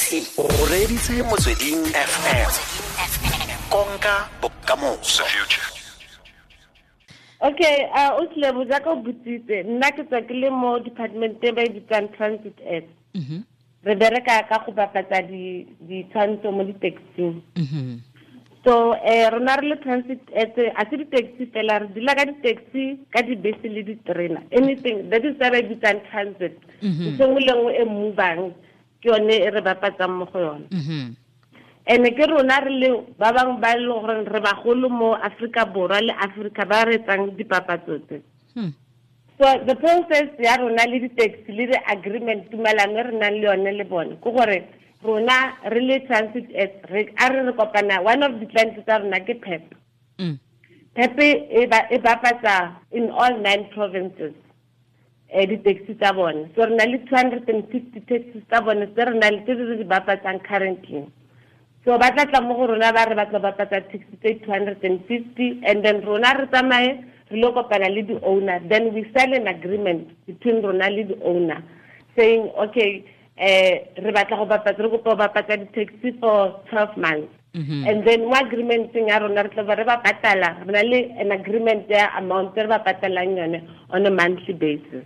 O reditse Motsweding FM, konka bokamoso. Okay, o tlile jaaka o botsitse, nna ke tswa ke le mo department e ba e bitsang Transit Ads. Re bereka ka go bapatsa ditshwantsho mo di-taxing. So rona re le Transit Ads, a se di-taxi fela, re dula ka di-taxi, ka dibese le diterena, anything that is ba e bitsang transit. Ntho nngwe le nngwe e movang ke yone e re bapatsang mo go yone. Ene ke rona re le ba bangwe ba e leng gore re bagolo mo Aforika Borwa le Aforika ba re etsang dipapatso tse. So the process ya rona le di-taxi le di-agreement, tumelano e re nang le yone le bone, ke gore rona re le Transit Ads, re a re re kopana, one of the clients tsa rona ke PEP. PEP e bapatsa in all 9 provinces di-taxi tsa bone. So re na le 250 taxis tsa bone tse re na le tse re di bapatsang currently. So ba tla tla mo go rona ba re ba tla bapatsa taxi tse 250, and then rona re tsamaye re lo kopana le di-owner, then we sign an agreement between rona le di-owner saying, okay, re batla go bapatsa, re kopa go bapatsa di-taxi for 12 months. And then mo agreement-eng ya rona re tla ba re ba patala, re na le an agreement ya amount e re ba patalang yone on a monthly basis.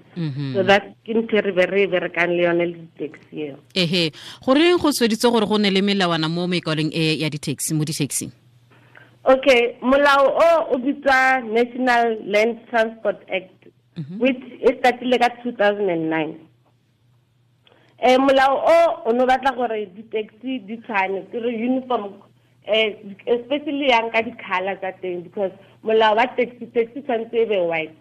So that's ke ntho e re be re e berekang le yone le di-taxi eo. Ehe, goreng go sweditse gore go nne le melawana mo mekwalong e ya di-taxi, mo di-taxing? Okay, molao o o bitswa National Land Transport Act, which e startile ka 2009. Molao o o no batla gore di-taxi di tshwane, ke re uniform, especially yang ka di-colour tsa teng, because molao wa taxi, taxi tshwanetse e be white.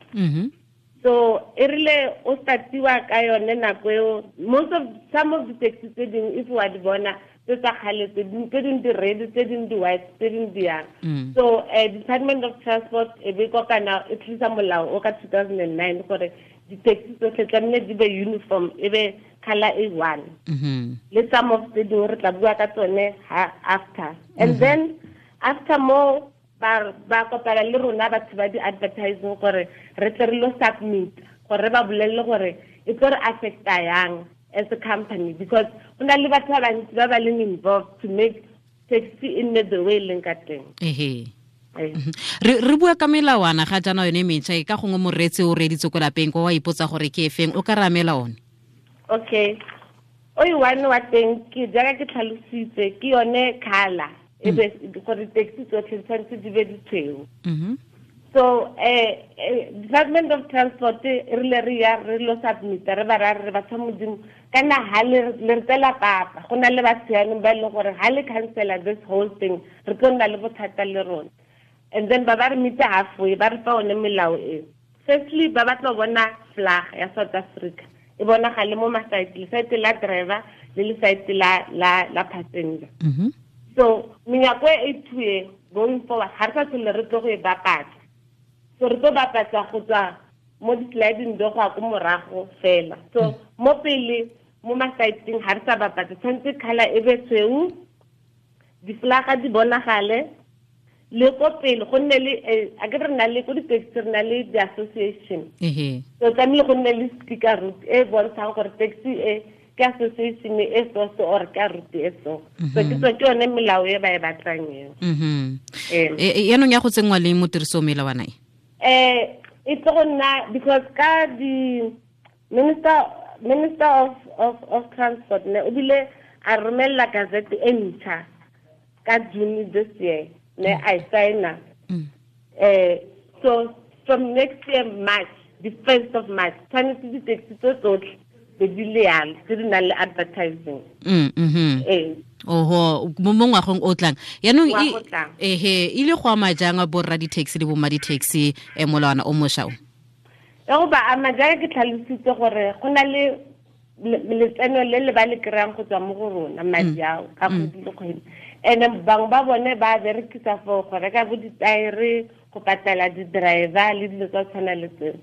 So e rile o startiwa ka yone nako eo, some of the taxi tse dingwe, if wa di bona tse tsa kgale, tse dingwe di red, tse dingwe di white, tse dingwe di yang. So Department of Transport e be kopana e tlisa molao o ka 2009 gore di-taxi tsotlhe tlamehile di be uniform, e be colour e one. Le some of tse dingwe re tla bua ka tsone ha after. And then after mo ba kopana le rona batho ba di-advertising gore re tle re lo submit, gore re ba bolelle gore e tlo re affecta yang as a company, because go na le batho ba bantsi ba ba leng involved to make taxi e nne the way e leng ka teng. Re bua ka melawana ga jaana yone metšha e ka gongwe moreetsi o reeditse ko lapeng kwa wa ipotsa gore ke efeng, o ka re amela one? Okay, o e one wa teng ke jaaka ke tlhalositse, ke yone colour e be gore taxi tsotlhe di tshwanetse di be ditshweu. So Department of Transport e rile re ya re lo submit, re ba ra re batho ba Modimo kana ha le re tsela papa, go na le batho yanong ba e leng gore ha le cancela this whole thing re tlo nna le bothata le rona. And then ba ba re meet halfway, ba re fa one melao e. Firstly, ba batla go bona flag ya South Africa e bonagale mo ma-side, le-side la driver le le-side la passenger. So menyako e two e going forward ga re sa tlhole re tlo go e bapatsa. So re tlo bapatsa go tswa mo di-sliding door go ya ko morago fela. So mo pele mo ma-side-eng ga re sa bapatsa, tshwanetse colour e be tshweu, di-flaga di bonagale, le ko pele go nne le, a ke re na le ko di-taxi re na le di-association. So tlamehile go nne le sticker route e bontshang gore taxi e ke association e so so or ke route e so. So ke tswa ke yone melao e ba e batlang eo. Yaanong ya go tsenngwa le mo tirisong melawana e? E tlo go nna because ka di minister of transport ne o bile a romella gazette e ntšha ka June this year, ne a e signa. So from next year March, the 1st of March, tshwanetse di-taxi tse tsotlhe be di le yalo, tse di nang le advertising. Oho, mo ngwageng o tlang. Yaanong Ngwaga o tlang. E ile go ama jang borra di-taxi le bomma di-taxi, molawana o mošwa o? E go ba ama jaaka ke tlhalositse gore go na le letseno le le ba le kry-ang go tswa mo go rona, madi ao ka kgwedi le kgwedi. And bangwe ba bone ba berekisa for go reka bo ditaere, go patela di-driver le dilo tsa tshwana le tseo.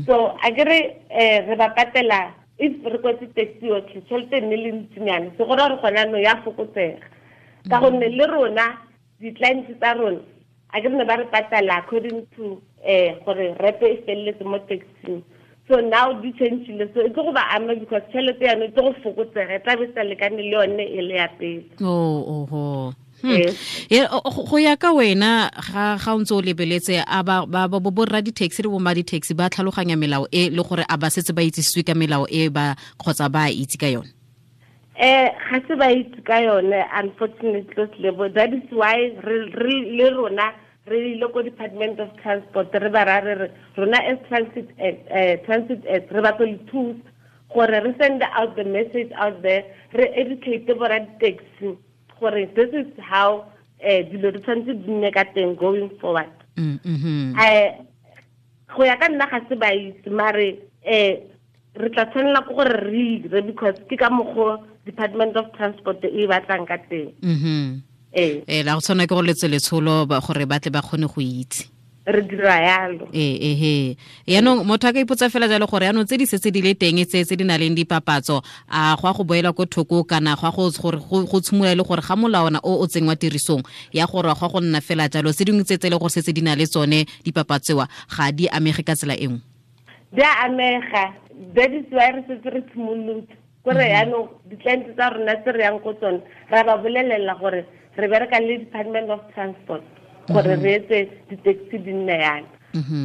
So a ke re ba patela if re kwetse taxi yotlhe, tšhelete e nne le ntsinyana, se go raya gore gone jaanong ya fokotsega. Ka gonne le rona di-clients tsa rona a ke re ne ba re patela according to gore repe e feleletse mo taxing. So now di changile, so e tlo go ba ama because tšhelete yane e tlo go fokotsega, e tla be sa lekane le yone e le ya pele. Oh. Go ya ka wena ga o ntse o lebeletse a ba borra di-taxi le bomma di-taxi ba tlhaloganya melao e le gore a ba setse ba itsisiwe ka melao e ba kgotsa ba itse ka yone? Ga se ba itse ka yone, unfortunately, Lebo. That is why re le rona re ile ko Department of Transport, re ba ra re rona as transit re batla le thusa gore re send out the message out there, re educate borra di-taxi gore this is how dilo di tshwanetse di nne ka teng going forward. Go ya ka nna ga se ba itse, mare re tla tshwanela ke gore re dire because ke ka mokgwa Department of Transport e batlang ka teng. La go tshwana ke go letse letsholo gore ba tle ba kgone go itse. Re dira yalo. Yaanong motho a ka ipotsa fela jalo gore yaanong tse di setse di le teng tse di na leng dipapatso, a go a go boela ko thoko kana go a go gore go tshimola le gore ga molawana o o tsengwa tirisong ya gore go go nna fela jalo, tse dingwe tse le gore setse di na le tsone dipapatsewa ga di amege ka tsela e nngwe? Di a amega. That is why re setse re tshimolotse kore yaanong di-client tsa rona tse re yang ko tsone ra ba bolelela gore re bereka le Department of Transport gore re etse di-taxi di nne yana.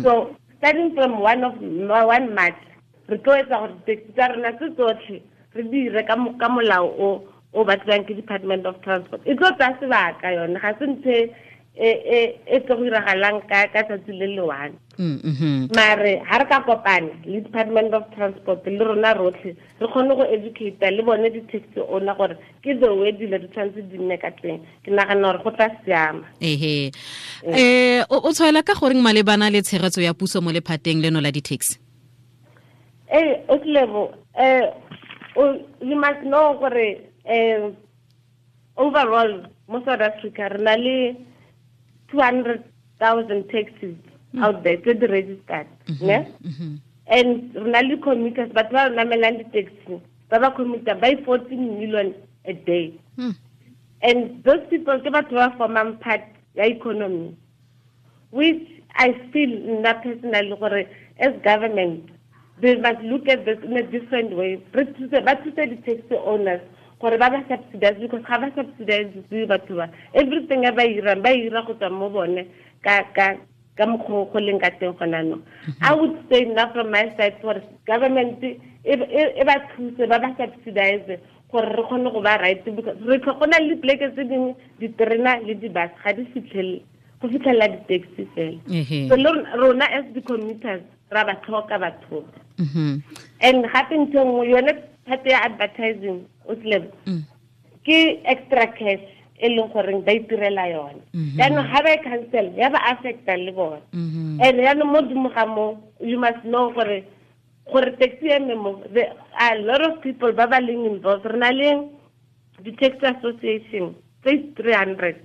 So starting from 1 March re tlo etsa gore di-taxi tsa rona tse tsotlhe re dire ka molao o batliwang ke Department of Transport. E tlo tsaya sebaka yone, ga se ntho e tlo go iragalang ka tsatsi le le one. Mare ha re ka kopana le Department of Transport le rona rotlhe re kgone go educate le bone di-taxi owner gore ke the way dilo di tshwanetse di nne ka teng, ke nagana gore go tla siama. O tshwaela ka goreng malebana le tshegetso ya puso mo lephateng leno la di-taxi? Otlebo, you must know gore overall mo South Africa re na le 200,000 taxis out there tse di registered, ne? And re na le commuters, batho ba namelang di-taxi ba ba commuter by 14 million a day. And those people ke batho ba formang part ya economy, which I feel nna personally gore as government they must look at this in a different way. Ba thuse di-taxi owners gore ba ba subsidize, because ga ba subsidize batho ba everything e ba irang ba ira go tswa mo bone ka mokgwa go leng ka teng gona no. I would say now from my side gore government e ba thuse ba ba subsidize gore re kgone go ba right, because re go na le dipleke tse dingwe diterena le di-bus ga di fitlhelele go fitlhelela di-taxi fela. So rona as the commuters ra ba tlhoka batho. And gape ntho nngwe yone part ya advertising o tlebe ke extra cash e leng goreng ba itirela yone. Jaanong ga ba e cancel ya ba affecta le bone. And jaanong mo godimo ga mo you must know gore taxi eme mo, there are a lot of people ba ba leng involved. Re na le di-taxi association tse 300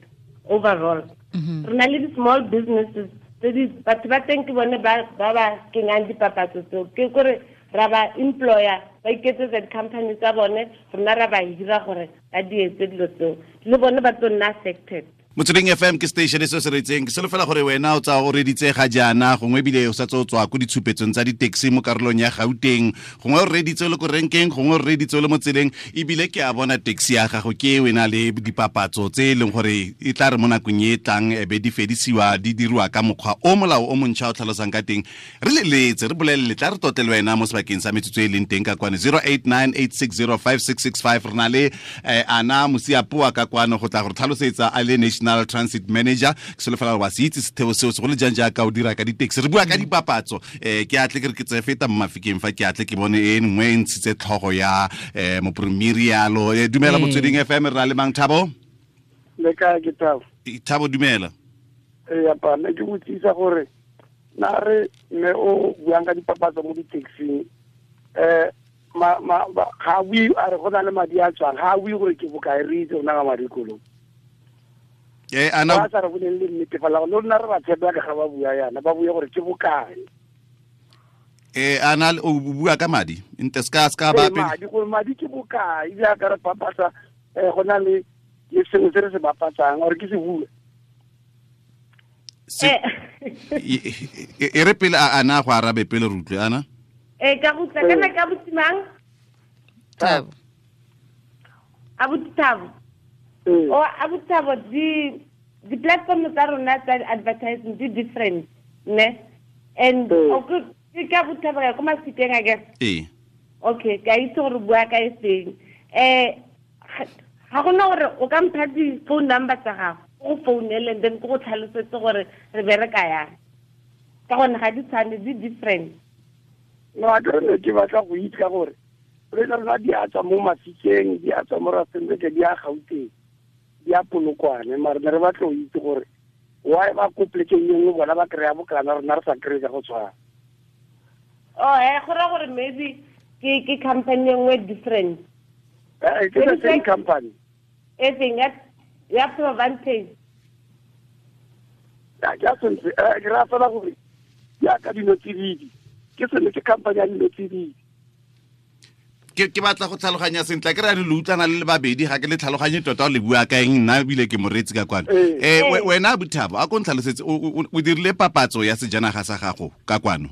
overall. Re na le di-small businesses tse batho ba teng ke bone ba ba kenyang dipapatso tseo, ke kore ra ba employer ba iketsetsa di-company tsa bone, rona ra ba hira gore ba di etse dilo tseo, le bone ba tlo nna affected. Motsweding FM ke station e se se retseng ke solofela gore wena o tsa o reditse ga jaana, gongwe ebile o sa tse o tswa ko ditshupetsong tsa di-taxi mo karolong ya Gauteng, gongwe o reditse o le ko renkeng, gongwe o reditse o le mo tseleng, ebile ke a bona taxi ya gago ke wena le dipapatso tse e leng gore e tla re mo nakong e tlang e be di fedisiwa di dirwa ka mokgwa o molao o montšha o tlhalosang ka teng. Re leletse re bolelele tla re totle le wena mo sebakeng sa metsotso e leng teng ka kwano 0898605665. Re na le Ana Mosiapoa ka kwano go tla go tlhalosetsa a le National Transit Manager. Ke solofela gore wa se itse setheo seo segolo jang jaaka o dira ka di-taxi. Re bua ka dipapatso. Ke atle ke re ke tse feta mo mafikeng fa ke atle ke bone e nngwe e ntshitse tlhogo ya mopremiri yalo. Dumela Motsweding FM, re na le mang? Thabo? Le kae? Ke Thabo. Thabo, dumela. Ee, pa ne ke botsisa gore na re mme o buang ka dipapatso mo di-taxing, ga bue a re go na le madi a tswang, ga bue gore ke bokae, re itse rona ka madi kolong. Ana ba sa re boleng le nnete fela, le rona re ba tshepa ka ga ba bua yana, ba bue gore ke bokae. Ana o bua ka madi nte ska ba pele madi gore madi ke bokae, jaaka re papatsa go na le sengwe se re se bapatsang gore ke se bue. E re pele ana go arabe pele re utlwe ana. Ka go tla kana ka botimang? Thabo. Abuti Thabo. O abuti Thabo, di platform tsa rona tsa advertising di different, ne? And okay, ke abuti Thabo ka Mafikeng, I guess. Okay, ka itse gore bua ka e seng. Ga gona gore o ka mpha di phone number tsa gago, go founele and then ke go tlhalosetse gore re bereka yang. Ka gonne ga di tshwane, di different. No, a ke ke batla go itse ka gore re rona di a tswa mo Mafikeng, di a tswa mo Rustenburg, di a Gauteng, di a Polokwane, mare ne re batla go itse gore why ba ko plekeng e nngwe bona ba kry-a bokana, rona re sa kry-e ka go tshwana. Oh, go raya gore maybe ke company e nngwe different. Ke the same company. E feng ya Provantage? Ya sentle, ke raya fela gore jaaka dino tsididi, ke sone ke company ya dino tsididi. Ke batla go tlhaloganya sentle, ke re le utlwana le le babedi, ga ke le tlhaloganye tota o le bua ka eng, nna ebile ke moreetsi ka kwano. Wena Abuti Thabo, a ko ntlhalosetse, o dirile papatso ya sejanaga sa gago ka kwano?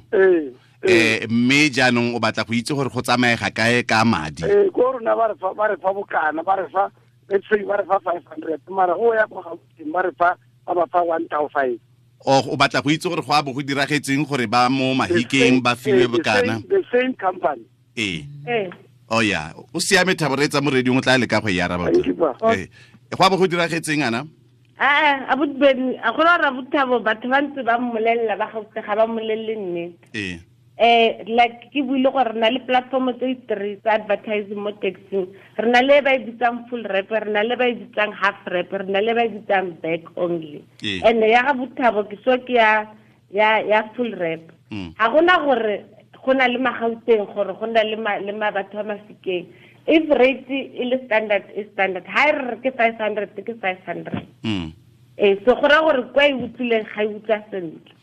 Mme jaanong o batla go itse gore go tsamaega kae ka madi? Ko rona ba re fa bokana, ba re fa, let's say ba re fa 500, mara go ya kwa Gauteng ba re fa, ba ba fa 1,500. O batla go itse gore go a bo go diragetseng gore ba mo Mahikeng ba fiwe bokana? The same company. Oh yeah, o siame Thabo, re tsa mo radio o tla leka go e araba. Go a bo go diragetseng ana? Abuti Ben, a go ra Abuti Thabo batho ba ntse ba mmolella ba Gauteng, ga ba mmolelle nnete. Like ke buile gore re na le platform tse three tsa advertising mo taxing. Re na le ba e bitsang full rap, re na le ba e bitsang half rap, re na le ba e bitsang back only. And ya ga Abuti Thabo ke so ke ya full rap. Ga gona gore go na le Magauteng gore go na le batho ba Mafikeng. If rate e le standard, e standard. Ha e re ke 500, ke 500. So go raya gore kwa e utlwileng ga e utlwa sentle.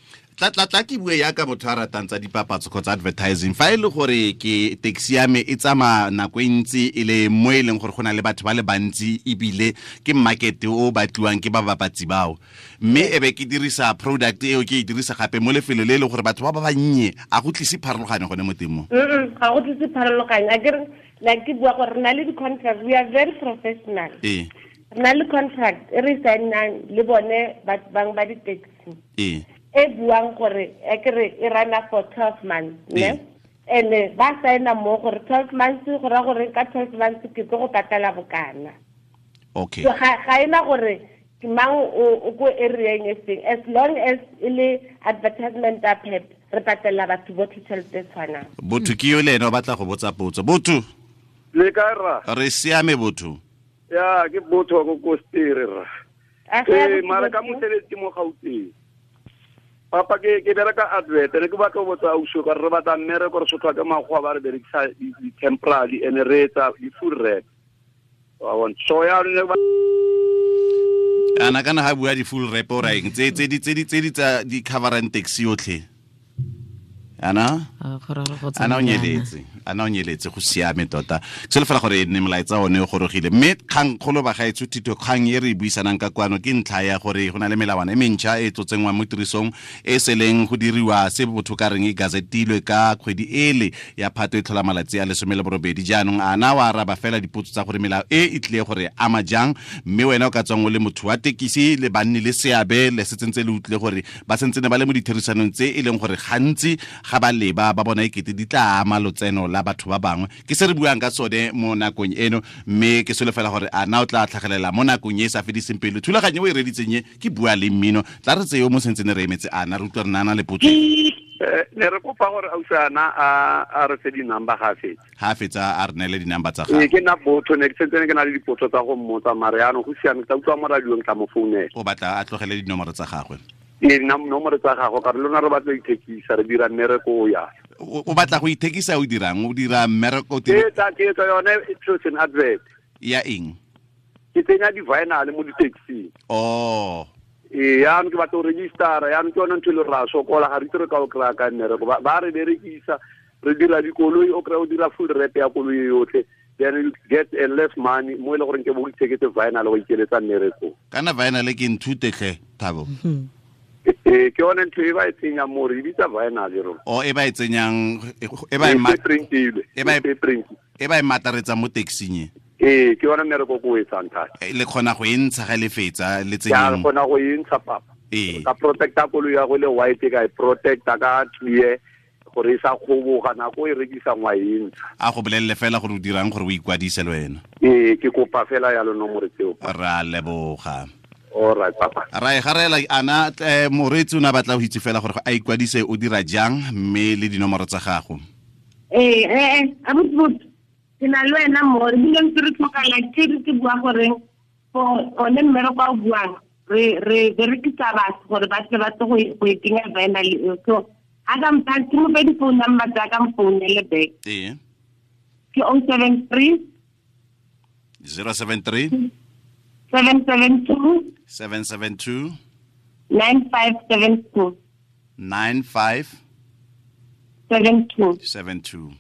Tla ke bue yaka motho a ratang tsa dipapatso kgotsa advertising. Fa e le gore ke taxi ya me e tsamaya nako e ntsi e le mo e leng gore go na le batho ba le bantsi, ebile ke market o batliwang ke ba bapatsi bao, mme e be ke dirisa product eo, ke e dirisa gape mo lefelo le e leng gore batho ba ba bannye, a go tlise pharologanyo gone mo teng mo? Ga go tlise pharologanyo. A ke re, like ke bua gore re na le di-contract, we are very professional. Re na le contract e re sign-ang le bone bang ba di-taxi. E buang gore e kere e rana for 12 months, ne? And ba signa mo gore 12 months, go ra gore ka 12 months ke tlo go patala bokana. Okay. So ga ena gore ke mang o ko area e seng, as long as e le advertisement a pep, re patela batho botlhe tšhelete e tshwanang. Botho ke yo le ene o batla go botsa potso. Botho. Le kae rra? Re siame botho. Ya, ke botho go Kostere rra. Mara ka mosebetsi mo Gauteng. Papa ke bereka advert, ne ke batla go botsa ausi ka re batla mmereko, re sotlwa ke makgowa ba re berekisa di-temporary and re etsa di-full rap. Wa bona? So ya ne ba ana kana ha bua di-full rap o raeng tse di tsa di coverang taxi yotlhe. Ana o nyeletse, go siame tota. Ke selo fela gore ne molaetsa one o gorogile. Mme kgang kgolo ba gaetsho thito, kgang e re e buisanang ka kwano ke ntlha ya gore go na le melawana e mentšha e tlotsengwang mo tirisong e seleng go diriwa se botho ka reng e gazetilwe ka kgwedi ele ya Phato e tlhola malatsi a 18. Jaanong ana wa araba fela dipotso tsa gore melao e e tlile gore ama jang, mme wena o ka tswang o le motho wa tekisi le banni le seabe le se tsentse le utlwile gore ba sentse ne ba le mo ditherisanong tse e leng gore gantsi ga ba leba ba bona ekete di tla ama lotseno la batho ba bangwe. Ke se re buang ka sone mo nakong eno, mme ke solofela gore a na o tla tlhagelela mo nakong e sa fediseng pelo. Thulaganyo e o e reditseng e ke bua le mmino, tla re tseo mo sentse ne re emetse ana re utlwa re nana le potso. Ne re kopa gore ausi ana a re fe di-number ga fetsa. Ha fetsa a re neele di-number tsa gagwe. Ke nna botho, ne ke sentse ke na le dipotso tsa go mmotsa, mare yaanong go siame, ke tla utlwa mo radiong, tla mo founela. O batla a tlogele dinomoro tsa gagwe? Ee, nomoro tsa gagwe, ka re lona re batla ithekisa, re dira mmereko o ya. O batla go ithekisa, o dirang? O dira mmereko? Ke etsa yone chosen advert. Ya eng? Ke tsenya di-vinyl mo di-taxing. Oh. Ee, yaanong ke batla go registera, yaanong ke yone ntho e le ra sokola, ga re itse re ka o kry-a ka mmereko. Ba re berekisa, re dira dikoloi, o kry-a o dira full rap ya koloi yotlhe, then you get a less money mo e le goreng ke bo itheketse vinyl go ikeletsa mmereko. Kana vinyl ke nthute tlhe, Thabo. Ke yone ntho e ba e tsenyang mo re bitsa vinyl rona. O e ba e tsenyang e ba e print e ba e mataretsa mo taxing. Ee, ke yone mmereko ko o etsang thata. Le kgona go e ntsha ga le fetsa le tsenyang. Ke kgona go e ntsha papa. Ka protecta koloi ya go le white ka e protecta ka clear gore e sa kgoboga nako e rekisang wa e ntsha. A go bolelele fela gore o dirang gore o ikwadise le wena. Ee, ke kopa fela ya lo nomoro tseo. Ra leboga. All right papa. Ra e garela ana moreetsi o ne a batla go itse fela gore a ikwadise o dira jang mme le dinomoro tsa gago. Ee, abuti ke na le wena mo re bile ntse re tlhoka like ke re bua gore for one mmereko o buang re berekisa batho gore ba tle ba tle go e kenya vinyl eo. So a ka mpha ke mo fe di-phone number tsa ka mfounele back. Ee. Ke 073 073 772 772 9572 9572 72.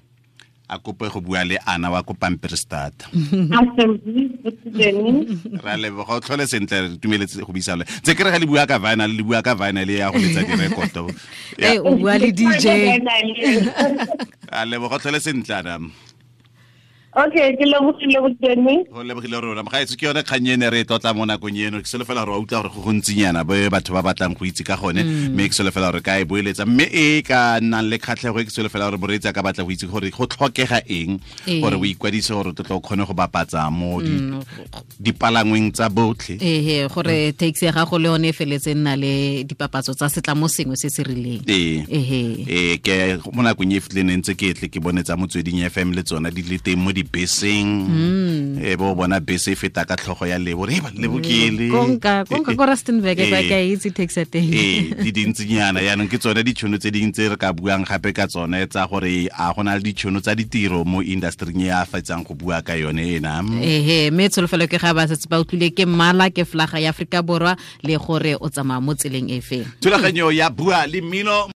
A kope go bua le Ana wa ko Pampierstad. Ra leboga o tlhole sentle re tumeletse go buisa le. Tse ke re ga le bua ka vinyl le bua ka vinyl ya go letsa direkoto. Eh o bua le DJ. A leboga o tlhole sentle Ana. Okay, ke lebogile botene. Go lebogile rona. Mogaetso ke yone kgang ene re e tlotla mo nakong eno. Ke solofela gore wa utlwa gore go gontsinyana bo batho ba batlang go itse ka gone, mme ke solofela gore ka e boeletsa mme e ka nnang le kgatlhego e ke solofela gore moreetsi a ka batla go itse gore go tlhokega eng gore o ikwadise gore o tlo kgone go bapatsa mo dipalangweng tsa botlhe. Ehe, gore taxi ya gago le yone e feletse nna le dipapatso tsa setlamo sengwe se se rileng. Ee, ke mo nakong e fitleng ntse ke tle ke bone tsa Motsweding FM le tsona di le teng mo dibeseng. E bo bona bese e feta ka tlhogo ya Lebo re ba Lebo ke le konka ko Rustenburg ba ka itse taxi teng. Ee, di dintsinyana yaanong ke tsone ditšhono tse dingwe tse re ka buang gape ka tsone tsa gore a go na le ditšhono tsa ditiro mo industry e a fetsang go bua ka yone ena. Ehe, mme tsholofelo ke ga ba setse ba utlwile ke mmala ke flaga ya Afrika Borwa le gore o tsamaya mo tseleng e feng. Thulaganyo ya Bua le Mmino.